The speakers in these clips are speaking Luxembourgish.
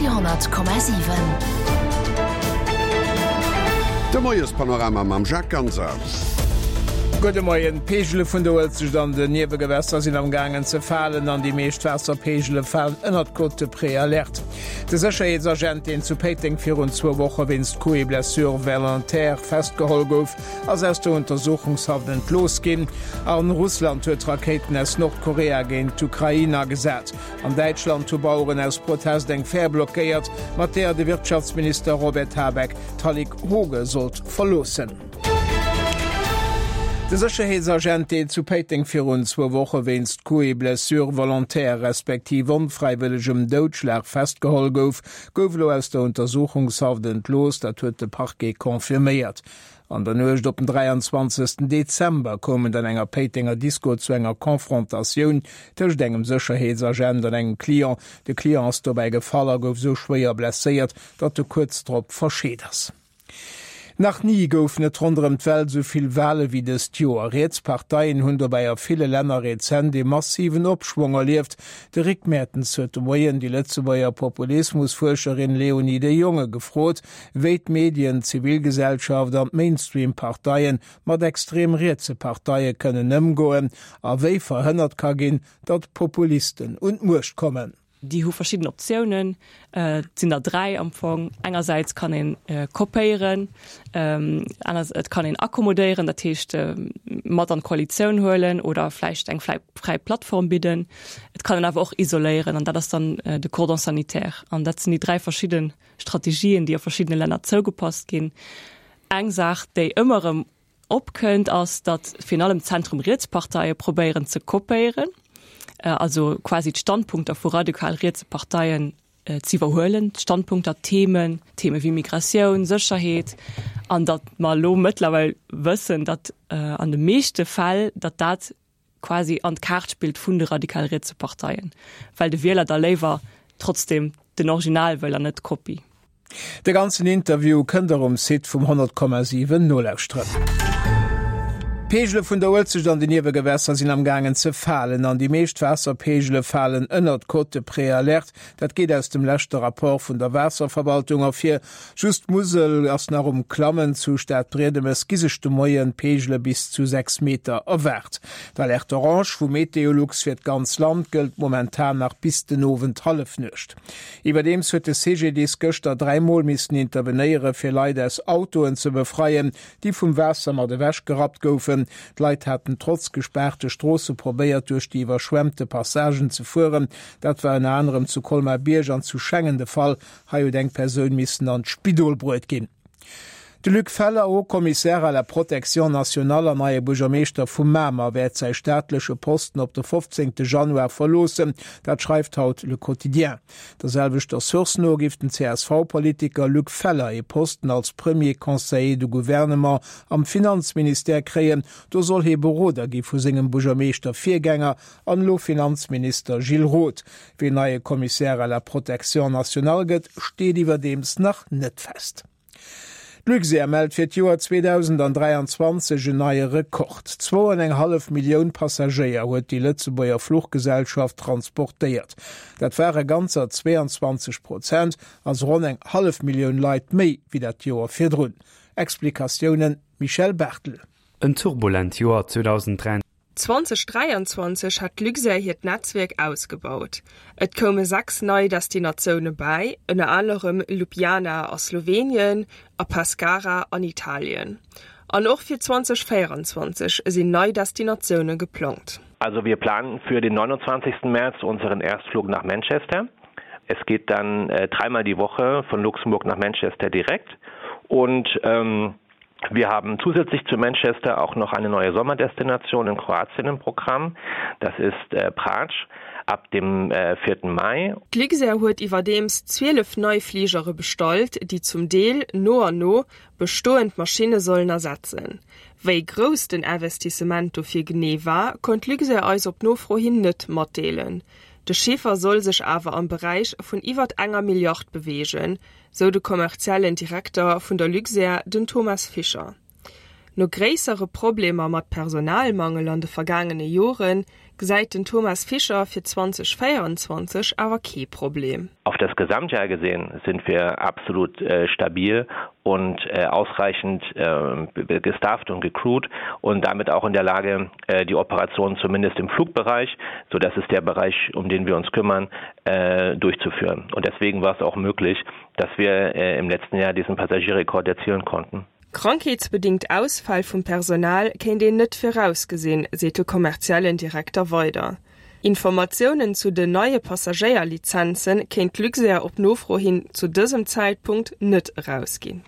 Radio 10,7. De Moiespanorama mam Jacques Ganser. Gudde Moien. D'Peegele vun der Uelzecht an den Niewegewässer sinn am gaangen ze falen an déi meescht Waasserpeegele falen ënnert d'Cote de Préalerte. De Sécherheetsagent, deen zu Péiteng virun zwou Woche wéinst Coups et blessures volontaires festgeholl gouf, ass aus der Untersuchungshaft entlooss ginn. An Russland huet Rakéiten aus Nordkorea géint d'Ukrain agesat. An Däitschland hu Baueren aus Protest eng Fähr blockéiert, mat deeër de Wirtschaftsminister Robert Habeck d'Hallig Hooge sollt verloossen. De Sécherheetsagent, deen zu Péiteng virun zwou Woche wéinst Coups et blessures volontaires respektiv onfräiwëllegem Doudschlag festgeholl gouf, gouf elo aus der Untersuchungshaft entlooss. Dat huet de Parquet confirméiert. An der Nuecht op den 23. Dezember koum et an enger Péitenger Disko zu enger Confrontatioun tëscht engem Sécherheetsagent an engem Client. De Client ass dobäi gefall a gouf sou schwéier blesséiert, datt e kuerz drop verscheet ass. Nach ni goufen et ronderëm d'Welt esou vill Wale wéi dëst Joer. Riets Parteien hunn dobäi a ville Länner rezent ee massiven Opschwong erlieft. De Rick Mertens huet de Moien déi Lëtzebuerger Populismusfuerscherin Léonie de Jonge gefrot, wéi d'Medien, d'Zivilgesellschaft an d'Mainstream-Parteien mat extrem rietse Parteie kënnen ëmgoen a wéi verhënnert ka ginn, datt Populisten un d'Muecht kommen. Déi hu verschidden Optiounen, et sinn der 3 am Fong. Engersäits kann een kopéieren, et kann een akkommodéieren, dat heescht mat an d'Koalitioun huelen oder vläicht eng fräi Plattform bidden. Et kann een awer och isoléieren an dat ass dann de Cordon sanitaire. An dat sinn déi 3 verschidde Strategien, déi a verschiddene Länner zougepasst ginn. Eng Saach, déi ëmmer erëm opkënnt, ass, datt virun allem Zentrum-Riets-Parteie probéieren ze kopéieren, also quasi d'Standpunkter vu radikal rietse Parteien ze iwwerhuelen, d'Standpunkter, d'Themen, Theme wéi Migratioun, Sécherheet, an datt mer elo mëttlerweil wëssen, datt an de meeschte Fäll, datt dat quasi an d'Kaart spillt vun de radikal rietse Parteien, well de Wieler da léiwer trotzdem den Original wëll an net d'Kopie. De ganzen Interview kënnt der um Site vum 100,7 nolauschteren. D'Peegele vun der Uelzecht an den Niewegewässer sinn am gaangen ze falen an déi meescht Waasserpeegele falen ënnert d'Cote de préalerte. Dat geet aus dem leschte Rapport vun der Waasserverwaltung ervir. Just d'Musel ass nach um Klammen. Zu Stadbriedemes gi sech de Moien Peegele bis zu 6 Meter erwaart. D'Alerte orange vu Meteolux fir d'ganz Land gëllt momentan nach bis den Owend Hallefnuecht. Iwwerdeems huet de CGDIS gëschter 3 Mol missen intervenéiere fir Leit aus Autoen ze befreien, déi vum Waasser mat ewech gerappt goufen. D'Leit haten trotz gespaarte Stroosse probéiert duerch déi iwwerschwemmte Passagen ze fueren. Dat war ënner anerem zu Colmar-Bierg an zu Schengen de Fall. Hei huet eng Persoun missen an d'Spidol bruet ginn. De Luc Feller, Haut Commissaire à la protection nationale an neie Buergermeeschter vu Mamer, wäert säi staatleche Posten op de 15 Januar verloossen. Dat schreift haut Le Quotidien. Der selwechter Source no géif den CSV-Politiker Luc Feller ee Posten als Premier Conseiller de Gouvernement am Finanzministère kréien. Do soll hie Beroder gi vu sengem Buergermeeschter-Virgänger an elo Finanzminister Gilles Roth. Ween neie Commissaire à la protection nationale gëtt, steet iwwerdeems nach net fest. D'Luxair mellt fir d'Joer 2023 en neie Rekord. Zwou an eng hallef Millioun Passagéier huet déi Lëtzebuerger Fluchgesellschaft transportéiert. Dat ware ganzer 22 Prozent, also ronn eng hallef Millioun Leit méi wéi dat Joer virdrun. Explikatiounen Michel Barthel. En turbulent Joer 2023. 2023 hat d'Luxair hiert Netzwierk ausgebaut. Et koume 6 nei Destinatioune bäi, ënner anerem Ljubljana a Slowenien a Pescara an Italien. An och fir 2024 sinn nei Destinatioune geplangt. Also wir planen für den 29. März unseren Erstflug nach Manchester. Es geht dann äh, dreimal die Woche von Luxemburg nach Manchester direkt und ähm, Wir haben zusätzlich zu Manchester auch noch eine neue Sommerdestination in Kroatien im Programm. Das ist äh, Pratsch ab dem äh, 4. Mai. D'Luxair huet iwwerdeems 12 nei Fligere bestallt, déi zum Deel no an no bestoend Maschinne sollen ersetzen. Wéi grouss den Investissement dofir genee war, konnt d'Luxair eis op Nofro hin net matdeelen. De Chiffer soll sech awer am Beräich vun iwwert enger Milliard beweegen, sou de kommerziellen Direkter vun der Luxair, den Thomas Fischer. No gréissere Problemer mat Personalmangel an de vergaangene Jore. gesäit den Thomas Fischer fir 2024 awer kee Problem. Auf das Gesamtjahr gesehen sind wir absolut stabil und ausreichend gestafft und gecrewt und damit auch in der Lage, die Operation zumindest im Flugbereich, so das ist der Bereich, um den wir uns kümmern, durchzuführen. Und deswegen war es auch möglich, dass wir im letzten Jahr diesen Passagierrekord erzielen konnten. Krankheetsbedingt Ausfäll vum Personal kéint een net virausgesinn, seet de kommerziellen Direkter weider. Informatiounen zu den neie Passagéierlizenze kéint d'Luxair op Nofro hin zu dësem Zäitpunkt net erausginn.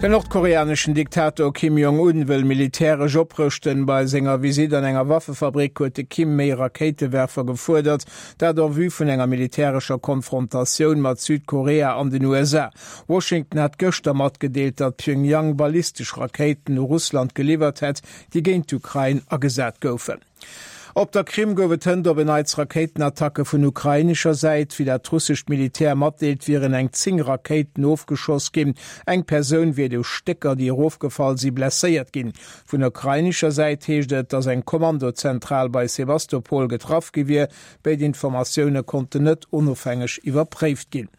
Den nordkoreaneschen Diktator Kim Jong-un wëll militäresch oprëschten. Bei senger Visitt an enger Waffefabrik huet de Kim méi Rakéitewerfer gefuerdert, dat en vue vun enger militärescher Konfrontatioun mat Südkorea an den USA. Washington hat gëschter matgedeelt, datt Pjöngjang ballistesch Rakéiten u Russland geliwwert hätt, déi géint d'Ukrain agesat goufen. Op der Krim gouf et hënt op en Neits Rakéitenattacke vun ukrainescher Säit. Wéi dat russescht Militär matdeelt, wieren eng 10 Rakéiten ofgeschoss ginn. Eng Persoun wier duerch Stécker, déi erofgefall si, blesséiert ginn. Vun ukrainescher Säit heescht et, datt eng Kommandozentral bei Sewastopol getraff gi wier. Béid Informatioune konnten net onofhängeg iwwerpréift ginn.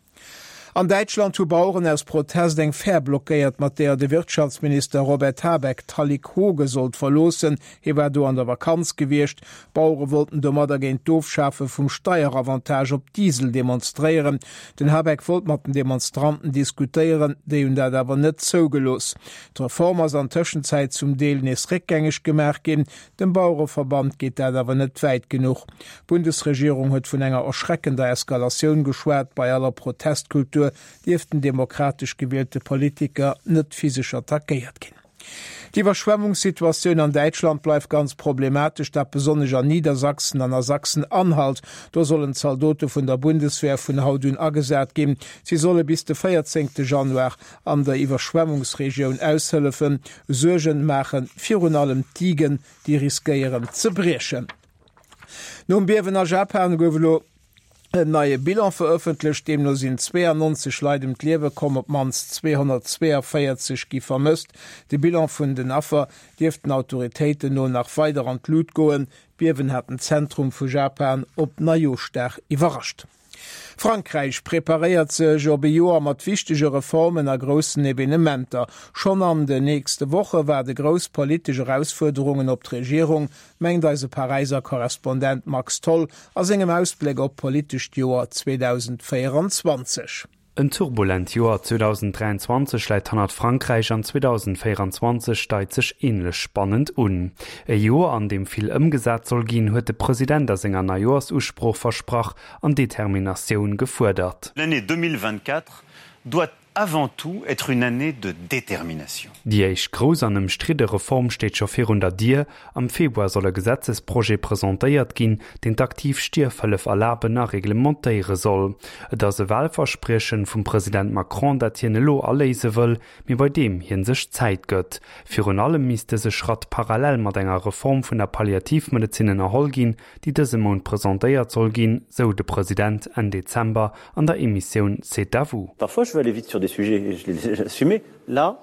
An Däitschland hu Baueren aus Protest eng Fähr blockéiert, mat deeër de Wirtschaftsminister Robert Habeck d'Hallig Hooge sollt verloossen. Hie war do an der Vakanz gewiescht. D'Bauere wollten domadder géint d'Ofschafe vum Steieravantage op Diesel demonstréieren. Den Habeck wollt mat den Demonstranten diskutéieren, déi hunn dat awer net zougelooss. D'Reform ass an Tëschenzäit zum Deel nees réckgängeg gemaach ginn. Dem Bauereverband geet dat awer net wäit genuch. D'Bundesregierung huet vun enger erschreckender Eskalatioun geschwat. Bei aller Protestkultur dierften demokratesch gewielte Politiker net physesch attackéiert ginn. D'Iwwerschwemmungssituatioun an Däitschland bleift ganz problematesch, dat besonnesch an Niedersachsen an a Sachsen-Anhalt. Do sollen Zaldote vun der Bundeswehr vun haut un agesat ginn. Si solle bis de 14 Januar an der Iwwerschwemmungsregioun aushëllefen. Suergen maache virun allem d'Digen, déi riskéieren ze briechen. Nom Biewen a Japan gouf elo en neie Bilan verëffentlecht. Deemno sinn 92 Leit ëm d'Liewe komm, op d'mannst 242 gi vermësst. De Bilan vun den Affer dierft den Autoritéiten no nach weider an d'Lut goen. D'Biewen hat den Zentrum vu Japan op Neijooschdag iwwerrascht. Frankräich preparéiert sech op e Joer mat wichtege Reformen a groussen Evenementer. Schonn an den nächste Woche waarde grouss politesch Erausfuerderungen op d'Regierung, mengt eise Paräiser Korrespondent Max Tholl a sengem Ausbléck op d'politescht Joer 2024. En turbulent Joer 2023 läit hannert Frankräich an 2024 deit sech änlech spannend un. E Joer, an deem vill ëmgesat soll ginn, huet de President a senger Neijoersusprooch versprach an Determinatioun gefuerdert. L'année 2024 doit avant tout être une année de détermination. Déi éischt grouss an ëmstridde Reform steet scho virun der Dier, Am Februar soll e Gesetzesprojet presentéiert ginn, deen d'aktiv Stierfhëllef erlaben a reglementéiere soll. Et ass e Wahlverspriechen vum President Macron, dat hien elo aléise wëll, mee bei deem hien sech Zäit gëtt. Virun allem misst dëse Schratt parallel mat enger Reform vun der Palliativmedezin ënnerholl ginn, déi dëse Mount presentéiert soll ginn, sou de President Enn Dezember an der Emissioun C'est à vous. Parfois je veux aller vite sur des sujets et je les assumer. Là,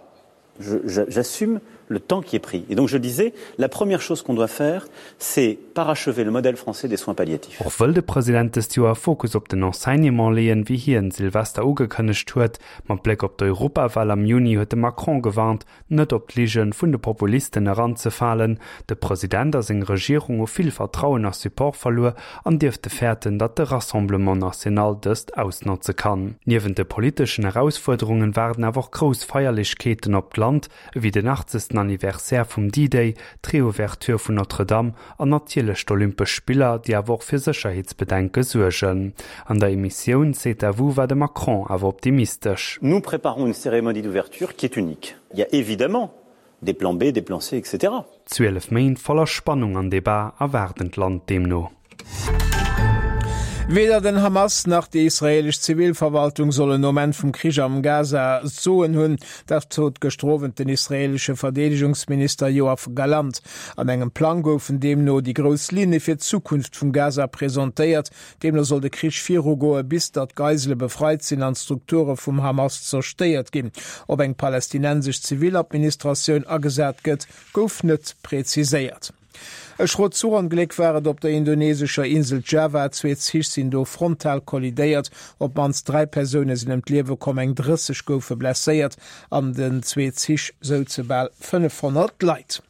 j'assume le temps qui est pris. Et donc je disais, la première chose qu'on doit faire, c'est parachever le modèle français des soins palliatifs. Och wëll de President dëst Joer Fokus op den Enseignement leeën, wéi hien Silvester ugekënnegt huet. Mat Bléck op d'Europawal am Juni huet de Macron gewarnt, net op d'Lige vun de Populisten eranzefalen. De President a seng Regierung hu vill Vertrauen a Support verluer an dierfte fäerten, datt de Rassemblement National dëst ausnotze kann. Niewent de politeschen Erausfuerderungen waarden awer och grouss Feierlechkeeten op d'Land, ewéi den 80. Anniversaire vum D-Day, d'Reouverture vun Notre-Dame an natierlech d'Olympesch Spiller, déi awer och fir Sécherheetsbedenke suergen. An der Emissioun C'est à vous war de Macron awer optimistesch. Nous préparons une cérémonie d'ouverture qui est unique. Il y a évidemment des plans B, des plans C, etc. 12 Méint voller Spannung an Debat erwaarden d'Land deemno. Weder den Hamas nach déi israeelesch Zivilverwaltung sollen nom Enn vum Krich am Gaza d'Soen hunn. Dat sot gëschter Owend den israeelesche Verdeedegungsminister Yoav Gallant. An engem Plang goufen deemno déi grouss Linne fir d'Zukunft vum Gaza presentéiert. Deemno soll de Krich virugoe bis datt d'Geisele befreit sinn an d'Strukture vum Hamas zerstéiert ginn. Ob eng palästinensesch Ziviladministratioun agesat gëtt, gouf net preziséiert. E schrot Zuchongléck war et op der indonesescher Insel Java. Zwee Zich sinn do frontal kollidéiert. Op d'mannst 3 Persoune sinn ëm d'Liewe komm, eng 30 goufe blesséiert. An den zwee Zich souze bal 500 Leit.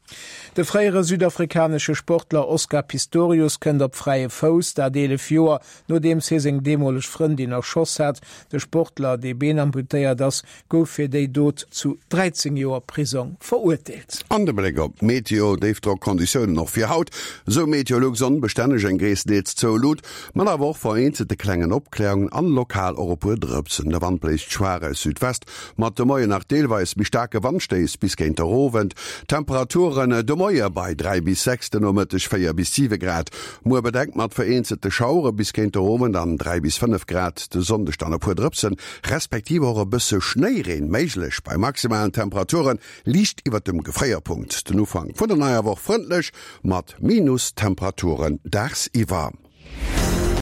De fréiere südafrikanesche Sportler Oscar Pistorius kënnt op fräie Fouss, dat 11 Joer nodeems hie seng deemoleg Frëndin erschoss hat. De Sportler, dee beenamputéiert ass, gouf fir déi Dot zu 13 Joer Prisong verurteelt. An de Bléck op d'Meteo, Déifdrockconditiounen och fir haut, esou Meteolux, onbestänneg, eng gréisstendeels zou Lut, mat awer och vereenzelte klengen Opkläerungen an lokal och e puer Drëpsen. De Wand bléist schwaach aus Südwest, mat de Moien nach deelweis méi staarke Wandstéiss bis géint der Owend. Temperaturen de Moie bei 3 bis 6, de Nomëtteg 4 bis 7 Grad. Muer bedeckt mat vereenzelte Schauere bis géint der Owend an 3 bis 5 Grad, de Sonndeg dann e puer Drëpsen, respektiv och e bësse Schnéireen méiglech bei maximalen Temperature liicht iwwert dem Gefréierpunkt. Den Ufank vun der neier Woch frëndlech mat Minustemperaturen dagsiwwer.